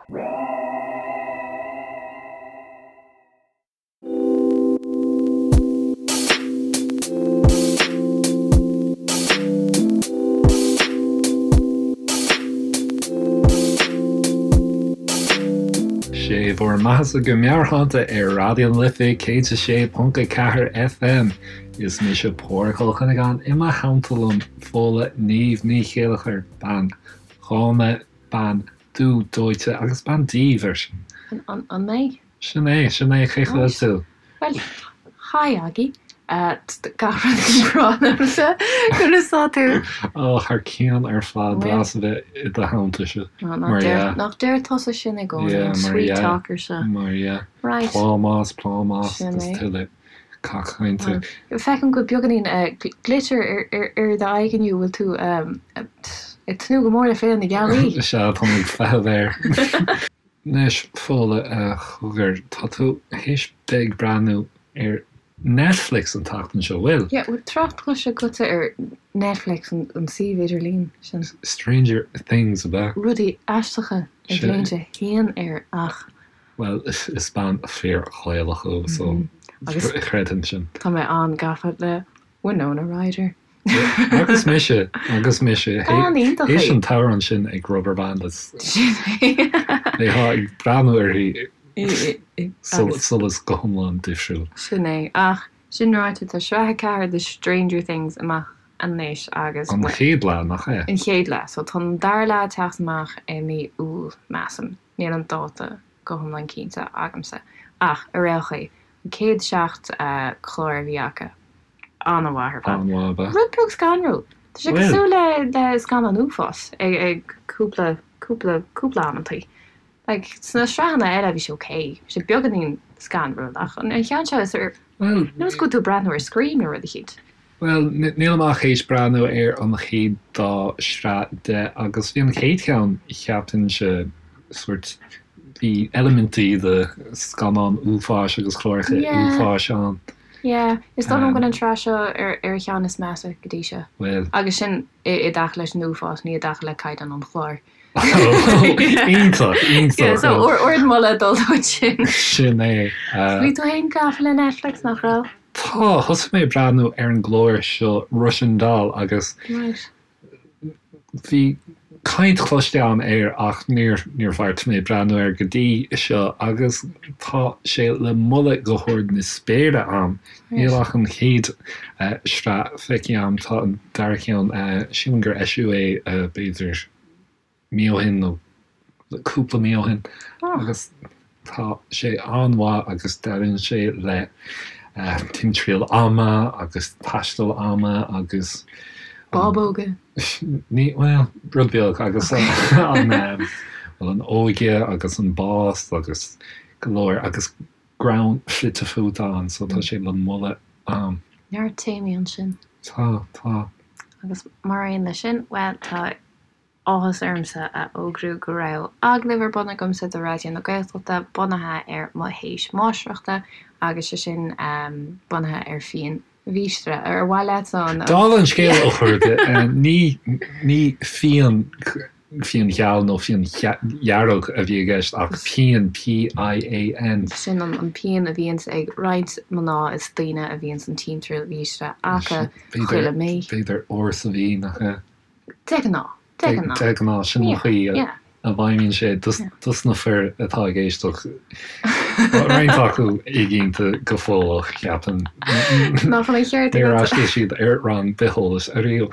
Sé bhur mbeathasa go Meabhairshláinte ar Raidió na Life 106.4 FM. Is mise Pádhraic Ó Cuinneagáin i mo theannta liom Fódhla Niamh Ní Chéilleachair, bean dhána, bean dubh dóite agus bean diamhair. An mé? Sin é, sin é, cén chaoi a bhfuil tú? Bhuel, hi Aggie. Gach rud go breá liomsa. Conas tá tú? Ó, thar cionn ar fad, deas a bheith i do theannta seo. Mar dhea. Nach deir tusa sin i gcónaí, an sweet talker seo. Mar dhea. Right. Plámás, plámás, agus tuilleadh cac cainte. Feicim go bhfuil beagáinín glitter ar d'aghaidh inniu, bhfuil tú ag tnúth go mór le Féile na Gealaí? Sea, tá mé ag feitheamh air. Anois, Fódhla, cogar, tá tú théis bheith ag breathnú ar Netflix an tseachtain seo, bhfuil? Yeah, bhfuil trácht cloiste agatsa ar Netflix, an suíomh idirlín sin? Stranger Things, ab ea? Rudaí aisteacha ag léimt a haon air ach. Bhuel, is bean fíor-Ghaelach thú, so chreidfinn sin. Tá mé an-gafa le Winona Ryder. Agus mise, agus mise. Bean iontach í. Théis an t-amhrán sin ag Rubberband is Sin é. bheifeá ag breathnú uirthi solas go hiomlán difriúil. Sin é. Ach sin ráite, tá sraith 4 de Stranger Things amach anois agus. An chéad leath, nach ea? An chéad leath. So tá an dara leath ag teacht amach i mí Iúil, measaim. Níl an dáta go hiomlán cinnte agamsa. Ach ar aon chaoi, an chéad 7 chlár a bhí acu, an-mhaith ar fad. An-mhaith ab ea? Rud beag scanrúil. Tá sé cosúil le le scannán uafáis ag ag cúpla cúpla cúpla amantaí. Like sna sraitheanna eile bhí sé ok, bhí sé beagáinín scanrúil ach an cheann seo is ar nós go bhfuil tú ag breathnú ar Scream nó rud eicínt. Bhuel, nílim ach théis breathnú ar an chéad dá shraith de agus bhí an chéad cheann, cheapfainnse, sórt, bhí eilimintí de scannán uafáis agus cláracha uafáis ann. Yeah, is dóigh liom go bhfuil an tsraith seo ar ar cheann is measa go dtí seo. Bhuel. Agus sin i i dtaca leis an uafás, ní i dtaca le caighdeán an chláir. Iontach, iontach. Yeah, so ardmholadh ag dul dóibh sin. Sin é. Bhí tú féin gafa le Netflix, nach raibh? Tá, thosaigh mé ag breathnú ar an gclár seo Russian Doll agus bhí caint cloiste agam air ach níor níor bheartaigh mé breathnú air go dtí seo agus tá sé le moladh go hard na spéire agam. Níl ach an chéad sraith feicthe agam, tá an dara ceann, sílim gur eisíodh é b'fhéidir mí ó shin nó cúpla mí ó shin agus tá sé an-mhaith agus deireann sé le timthriall ama agus taisteal ama agus. Bábóga. Ní, bhuel, rud beag agus an, bhuel, an óige agus an bás agus go leor agus greann fite fuaite ann so tá sé le moladh a'm. Neart téamaí ansin. Tá, tá. Agus mar aon leis sin, bhuel, tá áthas ormsa a fhógrú go raibh agallamh ar bun agamsa do Raidió na Gaeltachta bunaithe ar mo théis máistreachta agus sé sin bunaithe ar phian mhíostra. Ar mhaith leat an. Dála an scéil, a chairde, ní, ní phian, phian gheal nó phian dhearg a bhí i gceist ach pian, P-I-A-N. Sin an pian a bhíonns ag roinnt mná is daoine a bhíonns an timthriall mhíostra acu chuile mí. B'fhéidir uair sa mhí, nach ea? De ghnáth. De ghnáth. De ghnáth, sin an chaoi a bhfeidhmíonn sé dos na fir atá ag éisteacht. Tá roinnt acu éiginnte go fóill, cheapfainn. Nach bhfuil an ceart agat? Níor fhreastail siad ar rang bitheolais ariamh.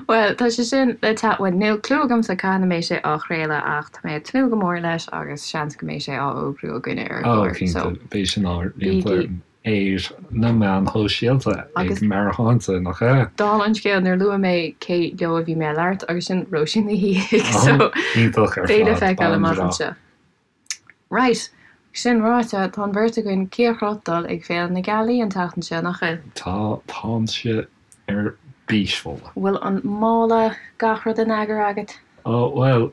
Bhuel, tá sé sin le teacht, bhuel, níl clue agamsa cathain a mbeidh sé á chraoladh ach tá mé ag tnúth go mór leis agus seans go mbeidh sé á fhógrú againne ar an gclár. Ó, cinnte, beidh sin á roinnt. ar na meáin shóisialta ag Meabhairshláinte, nach ea? Dála an scéil, níor luaigh mé cé leo a bhí mé ag labhairt agus sin Róisín Ní Shíthigh, so Iontach ar beidh le fad, feiceáil bean amach bhreá. anseo. Right, sin ráite, tá an bheirt againn cíocroth dul ag Féile na Gealaí an tseachtain seo, nach bhfuil? Tá, táimse ar bís, Fódhla. Bhfuil an mála, gach rud in eagar agat? Ó, bhuel,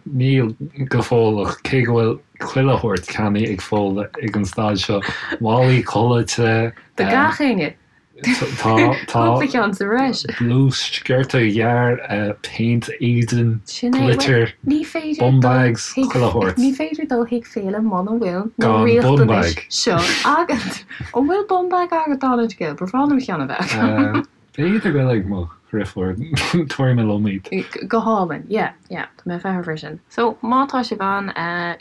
níl go fóill ach cé go bhfuil chuile shórt ceannaithe ag Fódhla ag an staid seo, málaí codlata. Do gach éinne! Tá, tá. Cúpla ceann sa bhreis. Blús, sciorta gearr, péint éadain, glitter, bum bags, chuile shórt. Ní féidir dul chuig féile muna bhfuil na riachtanais seo agat. An bhfuil bum bag agat, Donald Gill? Ba bhreá liom ceann a bheith agam. B'fhéidir go bhfuil ag mo dheirfiúr, tabharfaidh mé liom iad. Go hálainn, yeah, yeah, tá mé ag feitheamh air sin. So, má tá sibh ann,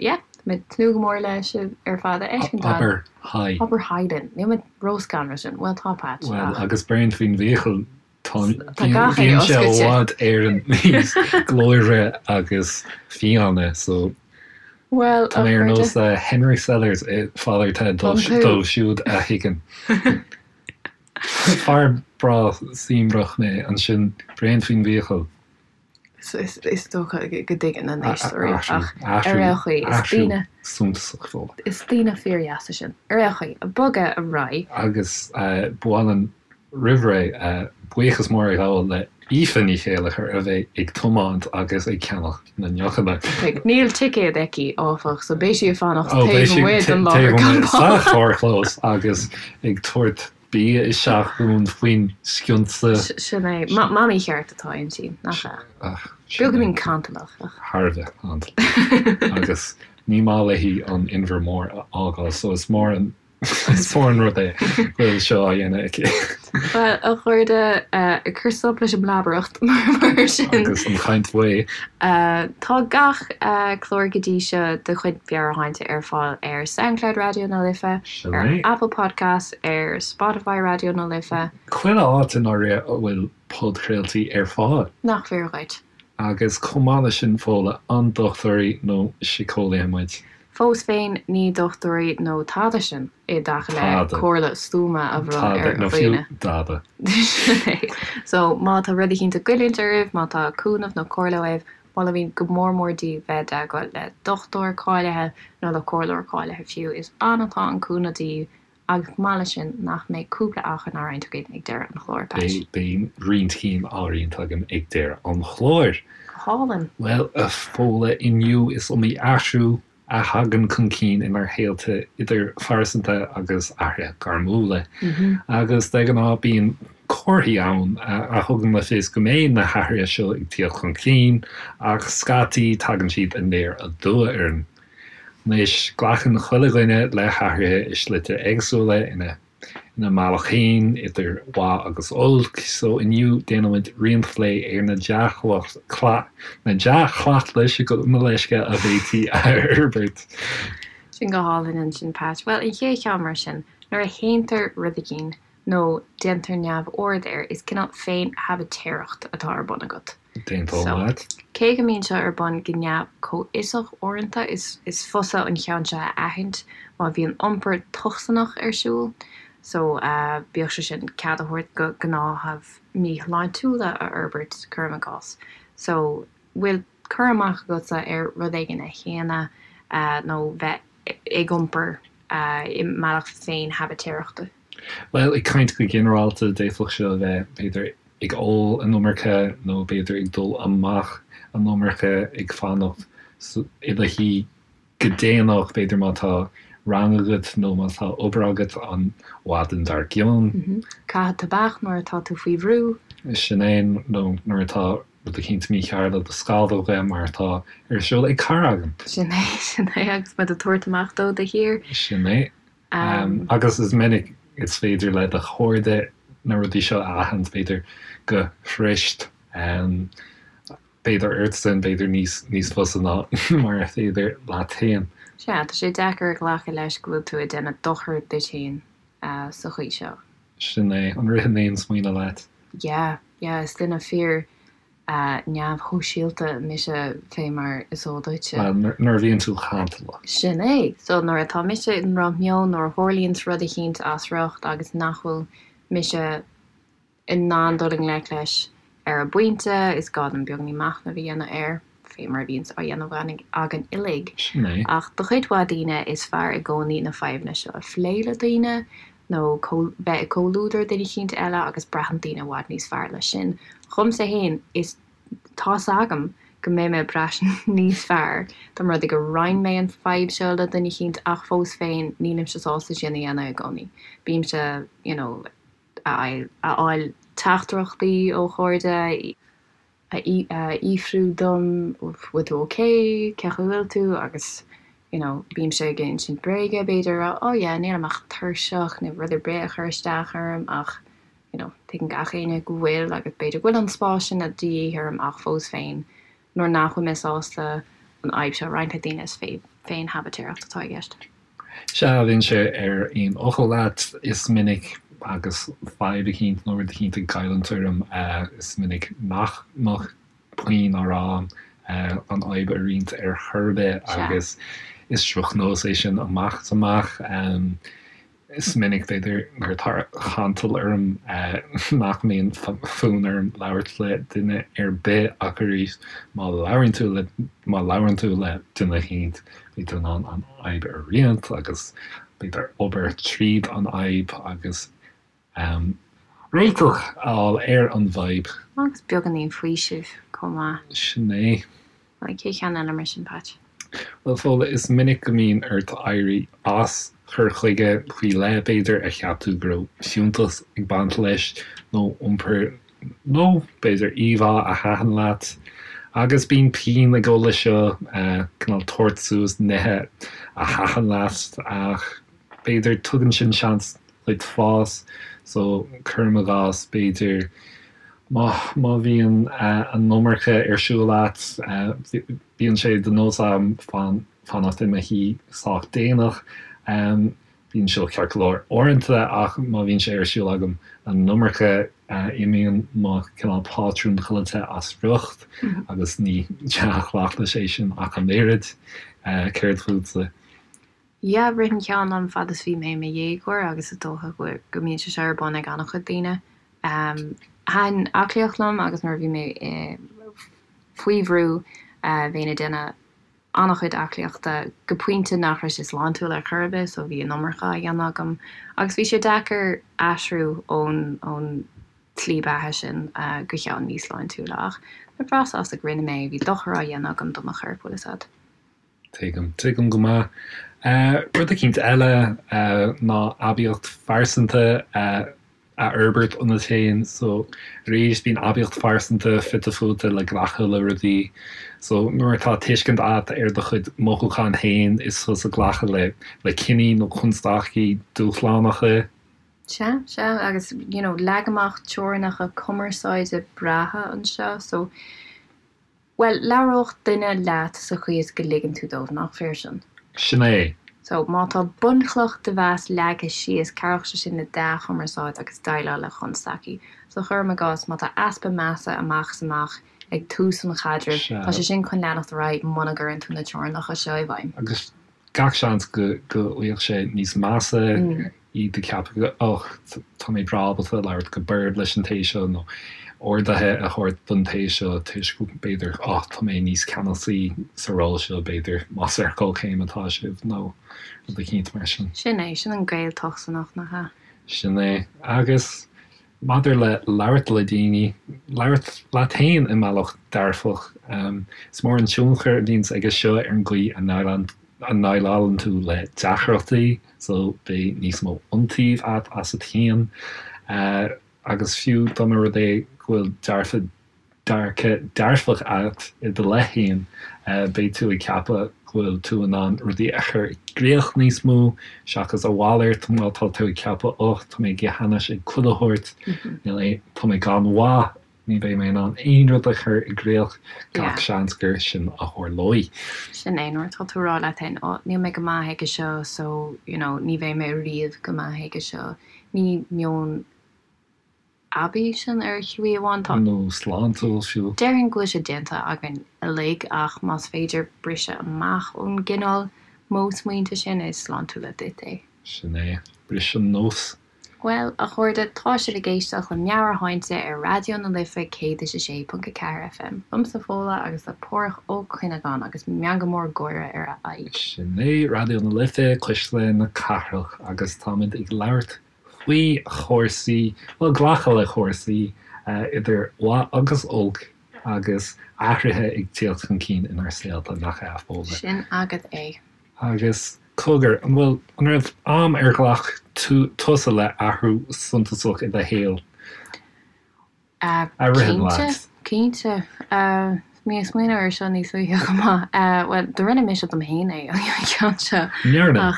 yeah, tá mé ag tnúth go mór le sibh ar fad a fheiscint ann. Abair hi. Abair hi linn. Níl mé róscanrúil sin. Bhuel, tá Patch, ach. Bhuel, agus bréan faoin bhfiacail, tá, bíonn sé i bhfad Éireann níos glóire agus fiáine, so. Bhuel, Tá mé ar nós Henry Sellers i Father Ted dóibh siúd a thuigeann. Fear breá suaimhneach mé ansin, bréan faoin bhfiacail. Is dócha go dtuigeann na n-éisteoirí ach ar aon chaoi, is daoine. suntasach Fódhla. Is daoine fíordheasa sinn. Ar aon chaoi, bogadh ar aghaidh. Agus ba mhaith linn roimh ré buíochas mór a ghabháil le Aoife Ní Chéilleachair a bheidh ag tiomáint agus ag ceannach na ndeochanna. Níl ticéad aici, áfach, so beidh sí ag fanacht taobh amuigh den láthair campála. Sa charrchlós agus ag tabhairt bia isteach dúinn faoin scionsa. Sin é. Mamaí cheart atá inti, nach ea? Beagáinín cantalach, ach. Thar a bheith cantalach. Agus ní maith léi an Inbhear Mór a fhágáil, so is mór an Is mór an rud é go bhfuil seo á dhéanamh aici. Bhuel, a chairde, ag cur stop leis an mblabaireacht mar sin. Agus an chaint bhaoth. Tá gach clár go dtí seo de chuid Mheabhairshláinte ar fáil ar Soundcloud Raidió na Life, ar Apple Podcasts, ar Spotify Raidió na Life. Chuile áit i ndáiríre a bhfuil podchraoltaí ar fáil. Nach fíor dhuit? Agus chomh maith leis sin, Fódhla, an dochtúirí nó síceolaithe muid? Fós féin, ní dochtúirí nó tada sinn i dtaca le comhairle stuama a bhronnadh ar dhaoine. Tada, nó fiú dada. Sin é. So, má tá rud eicínt ag goilliúint oraibh, má tá cúnamh nó comhairle uaibh, molaimid go mór mór daoibh bheith i dteagmháil le dochtúir cáilithe nó le comhairleoir cáilithe fiú. Is ann atá an cúnamh daoibh Agus chomh maith leis sin, nach mbeidh cúpla achrann á roinnt againn ag deireadh an chláir, Patch? Beidh, beidh roinnt cinn á roinnt agam ag deireadh an chláir. Go hálainn! Bhuel, a Fódhla, inniu is iomaí athrú a thagann chun cinn inár shaolta, idir phearsanta agus athruithe gairmiúla. Agus de ghnáth bíonn comharthaí ann a thugann le fios go mbeidh na hathruithe seo ag tíocht chun cinn, ach scaití tagann siad aniar aduaidh orainn. Anois, glacann chuile dhuine le hathruithe i slite éagsúla, ina ina mbealach féin, idir mhaith agus olc, so inniu déanfaimid roinnt plé ar na na dea-chleachtais, gabh mo leithscéal, a bhféadfaí a fhorbairt. Sin go hálainn ansin, Pat. Bhuel, an chéad cheann mar sin, nuair a shéantar rud eicínt nó déantar neamhaird air, is cineál féin-shabaitéireacht atá ar bun agat. D'aontóinn leat. Cé go mbíonn seo ar bun go neamh-chomhfhiosach uaireanta, is fusa an ceann seo a aithint má bhíonn iompar tocsaineach ar siúl, so bíodh sé sin cead a thabhairt do ghnáthaimh míshláintiúla a fhorbairt, cuirim i gcás. So, bhfuil cur amach agatsa ar rud éigin a shéanadh nó bheith ag iompar i mbealach féin-shabaitéireachta? Bhuel, ag caint go ginearálta, d'fhéadfadh seo a bheith, b'fhéidir, ag ól an iomarca nó b'fhéidir ag dul amach an iomarca, ag fanacht i do shuí go déanach, b'fhéidir má tá rang agat nó má tá obair agat an mhaidin dár gcionn. Caitheamh tobac nuair atá tú faoi bhrú. Sin é, nó nuair atá rud eicínt mícheart le do scamhóga mar atá ar siúl ag cara agam. Sin é, sin é, agus muid ag tabhairt amach dó de shíor. Sin é. Agus is minic is féidir le do chairde na rudaí seo a aithint, b'fhéidir go fuirist, b'fhéidir ortsan, b'fhéidir níos níos fusa ná mar a féidir leat féin. Sea, tá sé deacair a ghlacadh leis go bhfuil tú ag déanamh dochar duit féin sa chaoi seo. Sin é. An ritheann aon smaoineamh leat? Yeah, yeah, is duine fíor neamhshóisialta mise fé mar is eol duitse. Bhuel, nuair a bhíonn tú cantalach. Sin é. So nuair atá mise i ndrochmheon, nuair a tharlaíonns rud eicínt as riocht agus nach bhfuil mise in ann dul i ngleic leis ar an bpointe, is gá dom beagáinín machnaimh a dhéanamh air, fé mar a bhíonns á dhéanamh againn uilig. Sin é. Ach do chuid mhaith daoine, is fearr i gcónaí na fadhbanna seo a phlé le daoine, nó bheith i gcomhluadar duine eicínt eile agus braitheann daoine i bhfad níos fearr leis sin. Dhomsa fhéin, is tá's agam go mbeidh mé ag brath níos fearr dá mba rud é gur roinn mé an fadhb seo le duine eicínt ach fós féin nílimse sásta sin a dhéanamh i gcónaí. Bímse, you know. a fháil teachtaireachtaí ó chairde a fhiafrú dom bhfuil tú ok, cén chaoi a bhfuil tú agus you know bímse ag insint bréige b'fhéidir a rá oh yeah nílim ach tuirseach nó rud ar bith a chur isteach orm ach you know tuigeann gach éinne go bhfuil agus b'fhéidir go bhfuil an spás sin de dhíth orm ach fós féin nuair nach bhfuil mé sásta an fhadhb seo a roinnt le daoine is féin-shabaitéireacht atá i gceist. Sea, bheinnse ar aon fhocal leat. Is minic agus fadhb eicínt nó rud eicínt ag goilliúint orm, is minic nach mbeadh puinn á rá agam an fhadhb a roinnt ar chor ar bith agus is drochnós é sin amach is amach. Is minic, b'fhéidir, nuair atá cantal orm nach mbíonn fonn orm labhairt le duine ar bith ach arís má labhraíonn tú le, má labhrann tú le duine eicínt, beidh tú in ann an fhadhb a roinnt agus b'fhéidir obair tríd an fhadhb agus réiteach a fháil ar an bhfadhb. Agus beagáinín faoisimh chomh maith. Sin é. Bhuel, cén ceann eile mar sin, Patch? Bhuel, Fódhla, is minic go mbíonn ort éirí as cur chuige faoi leith, b'fhéidir, a cheap tú go raibh fiúntas ag baint leis, nó iompar nó b'fhéidir íomhá a thaitin leat. Agus bíonn pian ag dul leis seo, cineál tabhairt suas nithe a thaitin leat, ach b'fhéidir tugann sin seans duit fás. So, cuirim i gcás, b'fhéidir, má má bhíonn an iomarca ar siúl agat, bíonn sé de nós agam fanacht i mo shuí sách déanach. Bíonn seo ceart go leor uaireanta ach má bhíonn sé ar siúl agam an iomarca, imíonn mo cineál pátrún codlata as riocht agus ní dea-chleachtas é sin ach an oiread. Céard fútsa? Yeah, rith an ceann liom fad is bhí mé i mo dhéagóir agus is dócha go mbíonn sé seo ar bun ag an-chuid daoine. Thaitin aclaíocht liom agus nuair a bhí mé faoi bhrú bheinn ag déanamh an-chuid aclaíochta go pointe nach raibh sé sláintiúil ar chor ar bith so bhí an iomarca á dhéanamh agam agus bhí sé deacair aistriú ón ón tslí beatha sin go ceann níos sláintiúla ach mé breá sásta go rinne mé é, bhí dochar á dhéanamh agam do mo chorp, bhfuil fhios a'd. Tuigim, tuigim go maith. Rud eicínt eile ná aibíocht phearsanta a fhorbairt ionat féin. So, arís, bíonn aibíocht phearsanta fite fuaite le glacadh le rudaí. So, nuair atá tuiscint agat ar do chuid mothúchán féin, is tusa ag glacadh le le cinní nó constaicí dúshlánacha. Sea, sea, agus, you know, leag amach teorainneacha cumarsáide breátha anseo. So, Bhuel, labhródh duine leat sa chaoi is go ligeann tú dóibh, nach fíor sin? Sin é. So, má tá bunchloch de mheas leagtha síos, cabhróidh sé sin le dea-chumarsáid agus déileáil le constaicí. So, cuirim i gcás, má tá easpa measa amach is amach ag tús an chaidrimh, tá sé sin chun leanacht ar aghaidh muna gcuireann tú na teorainneacha seo i bhfeidhm. Agus gach seans go bhfuil sé níos measa, iad ag ceapadh och, tá mé breá ábalta labhairt go borb leis an té seo nó orduithe a thabhairt don té seo toisc b'fhéidir oh, tá mé níos ceannasaí sa ról seo b'fhéidir más ar comhchéim atá sibh nó rud eicínt mar sin. Sin é, sin an gaol tochsanach, nach ea? Sin é. Agus Maidir le labhairt le daoine, labhairt leat féin i mbealach dearfach. Is mór an tionchar a bhíonns aige seo ar an gcaoi a ndéileálann tú le deacrachtaí, so beidh níos mó iontaoibh agat asat féin. Agus fiú dá mba rud é go bhfuil dearfa dearcadh dearfach agat i do leith féin, beidh tú ag ceapadh go bhfuil tú in ann rudaí a chur i gcrích níos mó, seachas a mhalairt, má tá tú ag ceapadh oh, tá mé ag ithe anois ag chuile shórt, níl aon, tá mé gan mhaith, ní bheidh mé in ann aon rud a chur i gcrích, gach seans gur sin a tharlóidh. Sin é, nuair atá tú ag rá leat féin, oh, níl mé go maith aige seo, so, you know, ní bheidh mé riamh go maith aige seo, ní meon aibí sin ar shlí amháin. Tá. Nó sláintiúil fiú. Déarfainn go bhfuil sé déanta againn uilig ach más féidir briseadh amach ón gcineál modh smaointe sin, is sláintiúla duit é. Sin é. Bris an nós. Bhuel, a chairde, tá sibh ag éisteacht le Meabhairshláinte ar Raidió na Life 106.4 FM. Liomsa Fódhla agus le Páraic Ó Cuinneagáin agus meangadh mór gáire ar a aghaidh. Sin é, Raidió na Life, Cuisle na Cathrach, agus táimid ag labhairt faoi chúrsaí, bhuel, glacadh le cúrsaí, idir mhaith agus olc, agus athruithe ag tíocht chun cinn inár saolta, nach ea, a Fhódhla? Sin agat é. Agus cogar, an bhfuil, an raibh am ar ghlac tú tusa le athrú suntasach i do shaol a ritheann leat? Cinnte, cinnte. Bhí mé ag smaoineamh air seo níos luaithe chomh maith. Bhuel, do rinne mise dom fhéin é an ceann seo. Ndearna?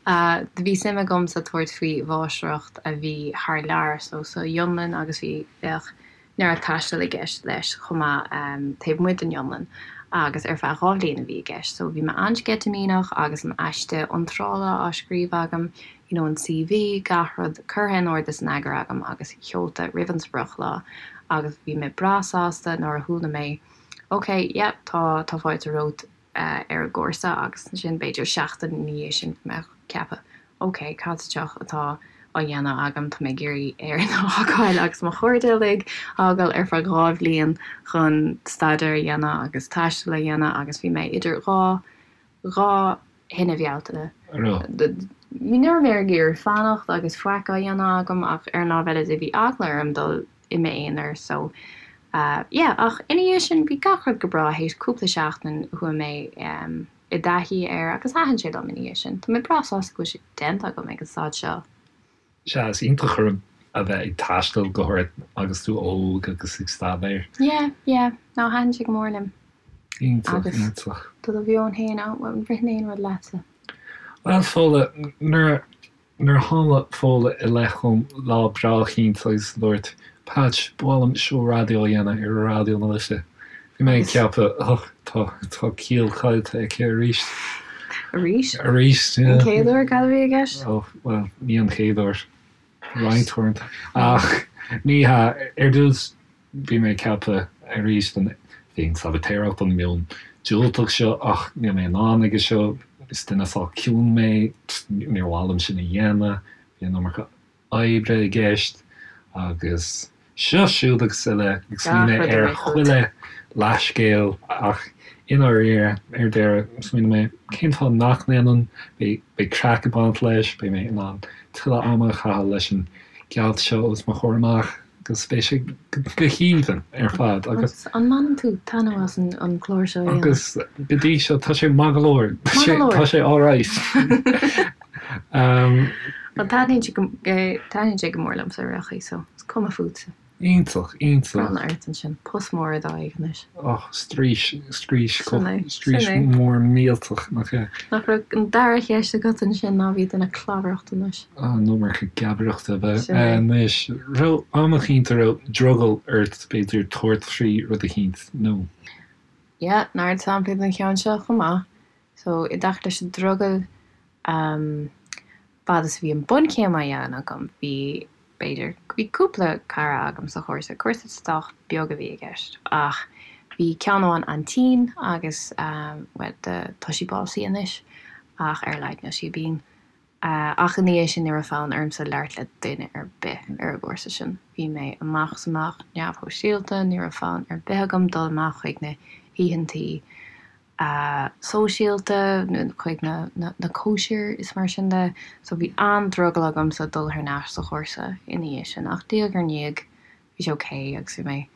Ach bhí suim agamsa tabhairt faoi mháistreacht a bhí thar lear, so sa Fhionlainn agus bhí, bheadh neart taistil i gceist leis chomh maith taobh amuigh den Fhionlainn agus ar feadh 2 bhliain a bhí i gceist so bhí mé an-sceitimíneach agus an aiste iontrála á scríobh agam, you know an CV, gach rud curtha in ord is in eagar agam agus seolta roimh an sprioclá agus bhí mé breá sásta nuair a chuala mé ok, yep, tá, tá fáilte romhat ar an gcúrsa agus ansin b'fhéidir seachtain ina dhiaidh sin bhí mé ag ceapadh ok, cad sa tsioc atá á dhéanamh agam, tá mé ag iarraidh Éirinn a fhágáil agus mo chairde uilig a fhágáil ar feadh 2 bhliain chun staidéar a dhéanamh agus taisteal a dhéanamh agus bhí mé idir 2, 2 thine Bhealtaine. Ní raibh mé ag iarraidh fanacht agus faic á dhéanamh agam ach ar an lámh eile de bhí eagla orm dul i m'aonar so yeah ach ina dhiaidh sin bhí gach rud go breá théis cúpla seachtain chuaigh mé i dtaithí air agus thaitin sé liom ina dhiaidh sin. Tá mé breá sásta go bhfuil sé déanta agam ag an staid seo. Sea, is iontach a bheith ag taisteal go háirithe agus tú óg agus ag staidéar. Yeah, yeah. No, thaitin sé go mór liom. Iontach, iontach. Do do mheon féin, an ritheann aon rud leatsa? Bhuel, Fódhla, nuair a Nuair a tháinig Fódhla i leith chugam lá breá eicínt agus dúirt, Patch, ba mhaith liom seó raidió a dhéanamh ar Raidió na Life. Bhí mé ag ceapadh, och, tá, tá ciall caillte aici arís. Arís? Arís, yeah. An chéad uair, cad a bhí i gceist? Oh, bhuel, ní an chéad uair. Roinnt uaireanta. Ach ní hea, ar dtús, Bhí mé ag ceapadh arís an féin-sabaitéireacht, an meon diúltach seo, ach níl mé in ann aige seo, is duine sách ciúin mé, níor mhaith liom sin a dhéanamh, bhí an iomarca oibre i gceist agus seo, siúd agus uile, ag smaoineamh ar chuile leathscéal ach i ndáiríre, ar deireadh, smaoinigh mé, cén fáth nach ndéanfainn, beidh craic ag baint leis, beidh mé in ann tuilleadh ama a chaitheamh leis an gealt seo os mo chomhair amach. Agus beidh sé go haoibhinn ar fad agus. An mbaineann tú taitneamh as an clár seo a dhéanamh? Agus go dtí seo tá sé maith go leor. Maith go leor. Tá sé alright. Bhuel taitníonn sé go, taitníonn sé go mór liomsa ar aon chaoi so is cuma fútsa. Iontach, iontach. Bronnadh ort ansin. Post mór i d'aghaidh anois. Och, straois, straois, straois mór millteach, nach ea? Nach raibh an dara cheist agat ansin ná bhí duine clabhaireacht anois. An iomarca geabaireachta ab ea? Anois, raibh am eicínt a raibh drogall ort, b'fhéidir, tabhairt faoi rud eicínt, nó. Yeah, neart samplaí den cheann seo chomh maith. So, i dtaca leis an drogall, um, fad is a bhí an bunchéim á dhéanamh agam, bhí, b'fhéidir, bhí cúpla cara agam sa chúrsa, cúrsa sách beag a bhí i gceist, ach bhí ceann amháin an-tinn agus, um, bhuel, tá sí básaithe anois, ach ar a laghad níl sí binn. Ach ina dhiaidh sin ní raibh fonn ormsa labhairt le duine ar bith ar an gcúrsa sin. Bhí mé amach is amach neamhshóisialta, ní raibh fonn ar bith agam dul amach chuig na hoícheantaí sóisialta, chuig na cóisir is mar sin de. So bhí an-drogall agamsa dul thar n-ais sa chúrsa ina dhiaidh sin. Ach diaidh ar ndiaidh bhí sé ok agus bhí mé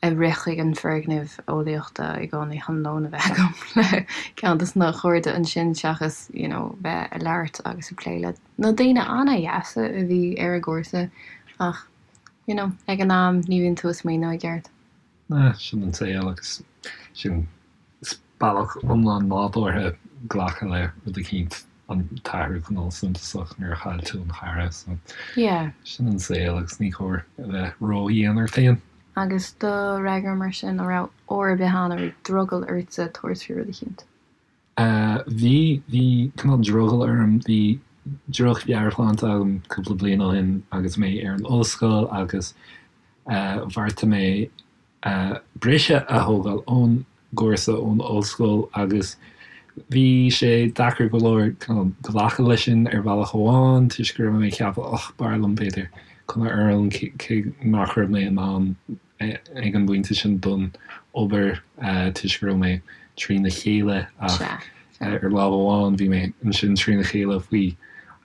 ag rith chuig an foirgneamh eolaíochta i gcónaí chun lón a bheith agam le ceann dos na cairde ansin seachas you know bheith ag labhairt agus ag plé le na daoine an-dheasa a bhí ar an gcúrsa ach you know ag an am ní bhíonn tú ag smaoineamh i gceart. Ah, sin an saol agus sin is bealach iomlán nádúrtha glacadh le rud eicínt, an t-athrú cineál suntasach nuair a chaill tú an chara so Yeah. sin an saol agus ní cóir a bheith ródhian ort féin. Agus do fhreagra mar sin, an raibh uair ar bith ann a raibh drogall ortsa tabhairt faoi rud eicínt? Bhí, bhí cineál drogall orm, bhí droch-mheabhairshláinte agam cúpla bliain ó shin agus mé ar an ollscoil agus bheartaigh mé briseadh a thógáil ón gcúrsa, ón ollscoil agus bhí sé deacair go leor cineál glacadh leis sin ar bhealach amháin toisc go raibh mé ag ceapadh och b'fhearr liom b'fhéidir coinneáil orm cé nach raibh mé in ann ag an bpointe sin don obair toisc go raibh mé trína chéile ach ar lámh amháin bhí mé ansin trína chéile faoi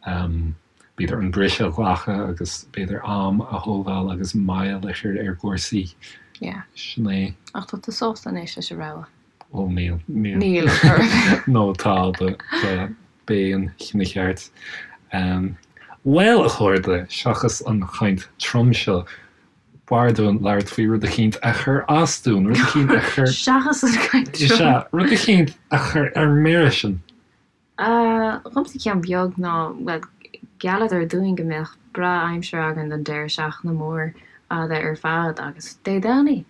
b'fhéidir an briseadh a ghlacadh agus b'fhéidir am a thógáil agus moill a chur ar chúrsaí. Yeah. Sin é. Ach tá tú sásta anois leis an rogha? Ó níl, níl. Níl, ar Nó tá, but b'é an cinneadh ceart. Bhuel, a chairde, seachas an chaint trom seo, b'fhearr dúinn labhairt faoi rud eicínt a chuir as dúinn, rud eicínt a chuir. Seachas an chaint trom. Sea, rud eicínt a chuir ar mire sinn. Dhomsa ceann beag ná, bhuel, ghealladar dúinn go mbeadh breá-aimsir againn don deireadh seachtaine mór fhada ar fad agus Dé Domhnaigh,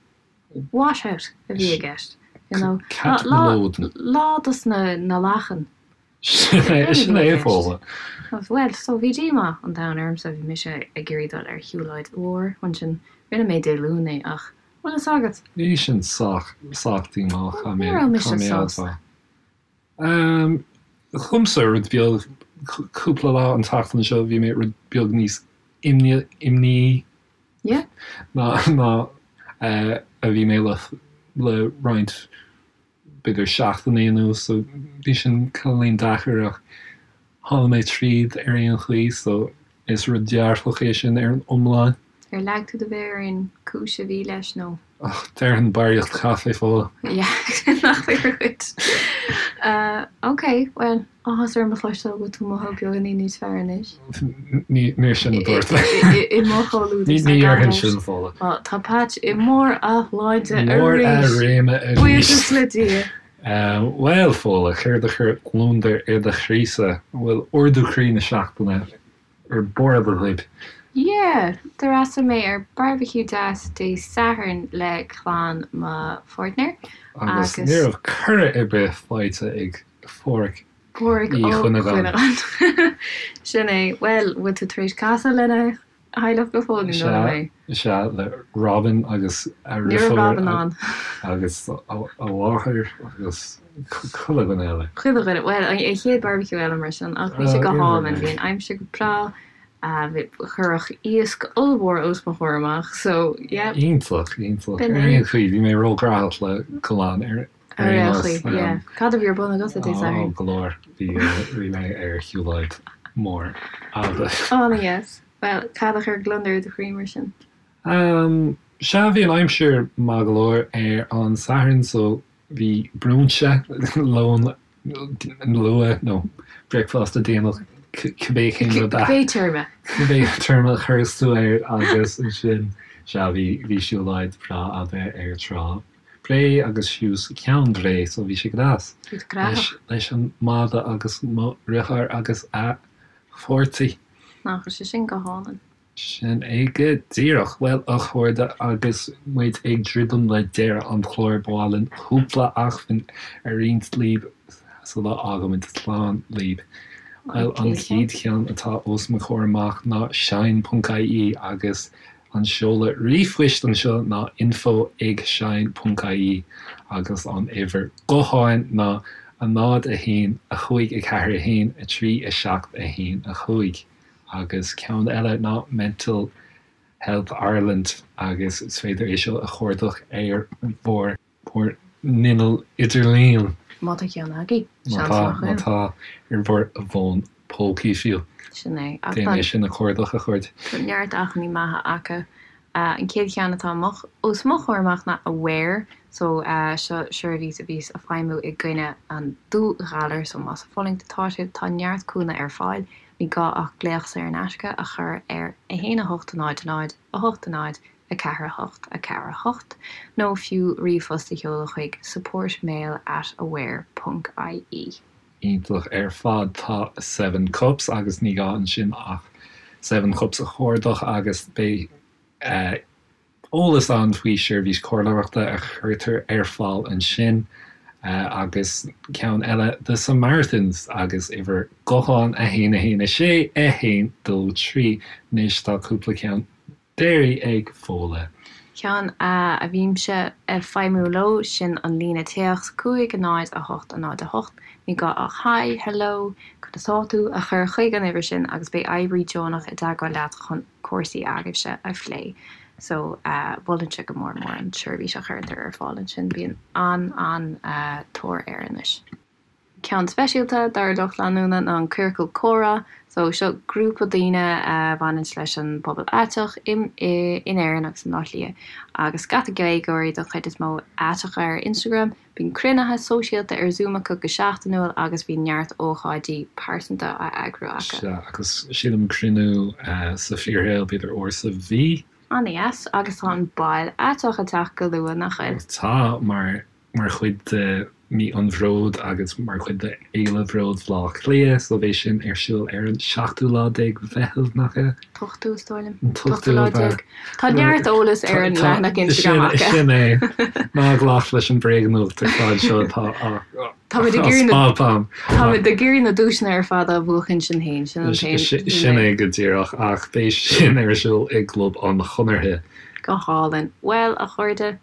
wash-out a bhí i gceist, you know. Cat na Lódan. Lá dos na na lachain. Sin é, sin é a Fódhla. Bhuel, so bhí díomá an domhain ormsa, bhí mise ag iarraidh dul ar shiúlóid mhór ansin, rinne mé Dé Luain é ach, bhfuil fhios agat? Bhí sin sách, sách díomách, Ní raibh mise sásta. Dhomsa, rud beag, cúpla lá an tseachtain seo bhí mé rud beag níos imníí ná a bhí mé le roinnt b'fhéidir seachtainí anuas so bhí sin cineáilín deacair ach tháinig mé tríd ar aon chaoi so is rud dearfach é sin ar an iomlán. Ar leag tú do mhéar ar an cúis a bhí leis nó? Ach déarfainn barraíocht caife, Fódhla. Yeah, nach fíor dhuit. Ok, bhuel, áthas orm a chloisteáil go bhfuil tú ag mothú beagáinín níos fearr anois. Níor sin a dúirt mé. I mo chomhluadar Ní dhéarfainn sin, Fódhla. Á, tá Patch i mbarr a shláinte arís. Mbarr a réime arís. Buíochas le Dia. Bhuel, Fódhla, céard a chuir gliondar ar do chroí-sa? An bhfuil ardú croí na seachtaine ar bord agaibh. Yeah! D'fhreastail mé ar barbecue deas Dé Sathairn le clann mo pháirtnéir Agus ní raibh cuireadh ar bith faighte ag Pháraic Páraic Uí Ó Chuinneagáin. Cuinneagáin. Sin é. Bhuel, bhfuil tú tar éis casadh lena theaghlach go fóill nó Sea, mé? sea, le Robin agus a Ní raibh dheirfiúr Robin ann. agus a mháthair agus chuile dhuine eile. Chuile dhuine. Bhuel, an chéad barbecue eile mar sin, ach bhí sé go hálainn. Bhí an aimsir go breá, cuireadh iasc ollmhór os mo chomhair amach, so yeah. Iontach, iontach. Ar aon chaoi, bhí mé róghnóthach le dul ann ar Ar aon chaoi, yeah. Cad a bhí ar bun agatsa Dé Sathairn? Ó, go leor. Bhí mé ar shiúlóid mór fhada. An-deas. Bhuel, cad a chuir gliondar ar do chroí mar sin? Sea, bhí an aimsir maith go leor ar an Satharn so bhí brúinse, lón luath nó bricfeasta déanach, cibé cén rud a. Cibé téarma. Cibé téarma a chuireas tú air agus ansin, sea, bhí, bhí siúlóid bhreá fhada ar Trá Bhré agus suas Ceann Bhré so bhí sé go deas. Bhí tú gnóthach. Leis an mada agus mo dheartháir agus a pháirtí. Nach bhfuil sé sin go hálainn. Sin é go díreach. Bhuel, a chairde, agus muid ag druidim le deireadh an chláir, ba mhaith linn cúpla acmhainn a roinnt libh sula bhfágaimid slán libh. Bhuel, an chéad cheann atá os mo chomhair amach ná shine.ie agus an seoladh ríomhphoist anseo ná info ag shine.ie agus an uimhir gutháin ná 0 1 5 4 1 3 7 1 5. Agus ceann eile ná Mental Health Ireland agus is féidir é seo a chuardach ar bhur bhur n-inneall idirlín. Má tá ceann agaibh, Má tá, má tá, ar bhur bhfón pócaí fiú. Sin é. Déan é sin a chuardach, a chairde. Tá neart acmhainní maithe acu. An chéad cheann atá os mo chomhair amach ná Aware, so seo seirbhís a bhíos ag feidhmiú i gcoinne an dúghalair, so más ag fulaingt atá sibh, tá neart cúnamh ar fáil, ní gá ach glaoch saor in aisce a chur ar 1 8 0 0 8 0 4 8 4 8 nó fiú ríomhphost a sheoladh chuig supportmail at aware ponc ie. Iontach ar fad. Tá Seven Cups agus ní gá ansin ach Seven Cups a chuardach agus beidh eolas ann faoi seirbhís comhairleoireachta a chuirtear ar fáil ansin agus ceann eile The Samaritans agus uimhir gutháin 1 1 6 1 2 3. Anois tá cúpla ceann deiridh ag Fódhla. Ceann a bhímse ag feidhmiú leo, sin an líne téacs 5 0 8 0 8. Ní gá ach Hi, Hello, conas tá tú? a chur chuig an uimhir sin agus beidh oibrí deonach i dteagmháil leat chun cúrsaí agaibhse a phlé. So, mholfainnse go mór mór an tseirbhís a chuirtear ar fáil ansin. Bíonn an-an-tóir air anois. Ceann speisialta dár lucht leanúna ná an Ciorcal Comhrá. So, seo grúpa daoine a bhaineanns leis an bpobal aiteach in Éirinn agus i mBleá Cliath agus scata Gaeilgeoirí don chuid is mó aiteacha ar Instagram. Bíonn cruinnithe sóisialta ar Zoom acu go seachtainiúil agus bíonn neart ócáidí pearsanta á eagrú acu. Sea, agus sílim cruinniú sa fíorshaol b'fhéidir uair sa mhí. An-dheas, agus tá an Bail Aiteach ag teacht go luath, nach bhfuil? Tá, mar mar chuid de Mí an Bhróid agus mar chuid de Fhéile Bhróid Bhaile Átha Cliath, so beidh sin ar siúl ar an seachtú lá déag Mheitheamh, nach ea? T-ochtú, is dóigh liom. An t-ochtú lá déag. Tá neart eolas ar an leathanach Instagram acu. Sin é. Ná glac leis an bréagnuacht ar fad seo atá á Táimid ag iarraidh na Táimid ag iarraidh na duaiseanna ar fad a bhuachan sinn féin, sin an t-aon. Sin é go díreach, ach beidh sin ar siúl i gClub an Chonartha. Go hálainn. Bhuel, a chairde,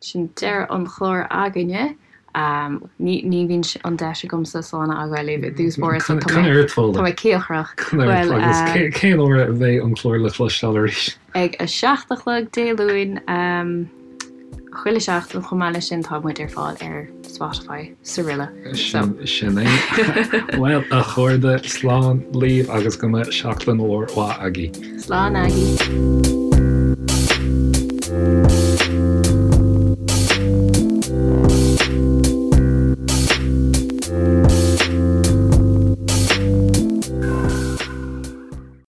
Sin deireadh an chláir againne. Ní ní bhíonn an deis agamsa slán a fhágáil libh i dtús báire so tá mé tá mé cíocrach. Bhuel Agus cén uair a bheidh an clár le cloisteáil arís? Ag a 7 a chlog Dé Luain chuile sheachtain chomh maith leis sin tá muid ar fáil ar Spotify 's araile. So. Sin é. Bhuel a chairde slán libh agus go mbeidh seachtain mhór mhaith agaibh. Slán agaibh.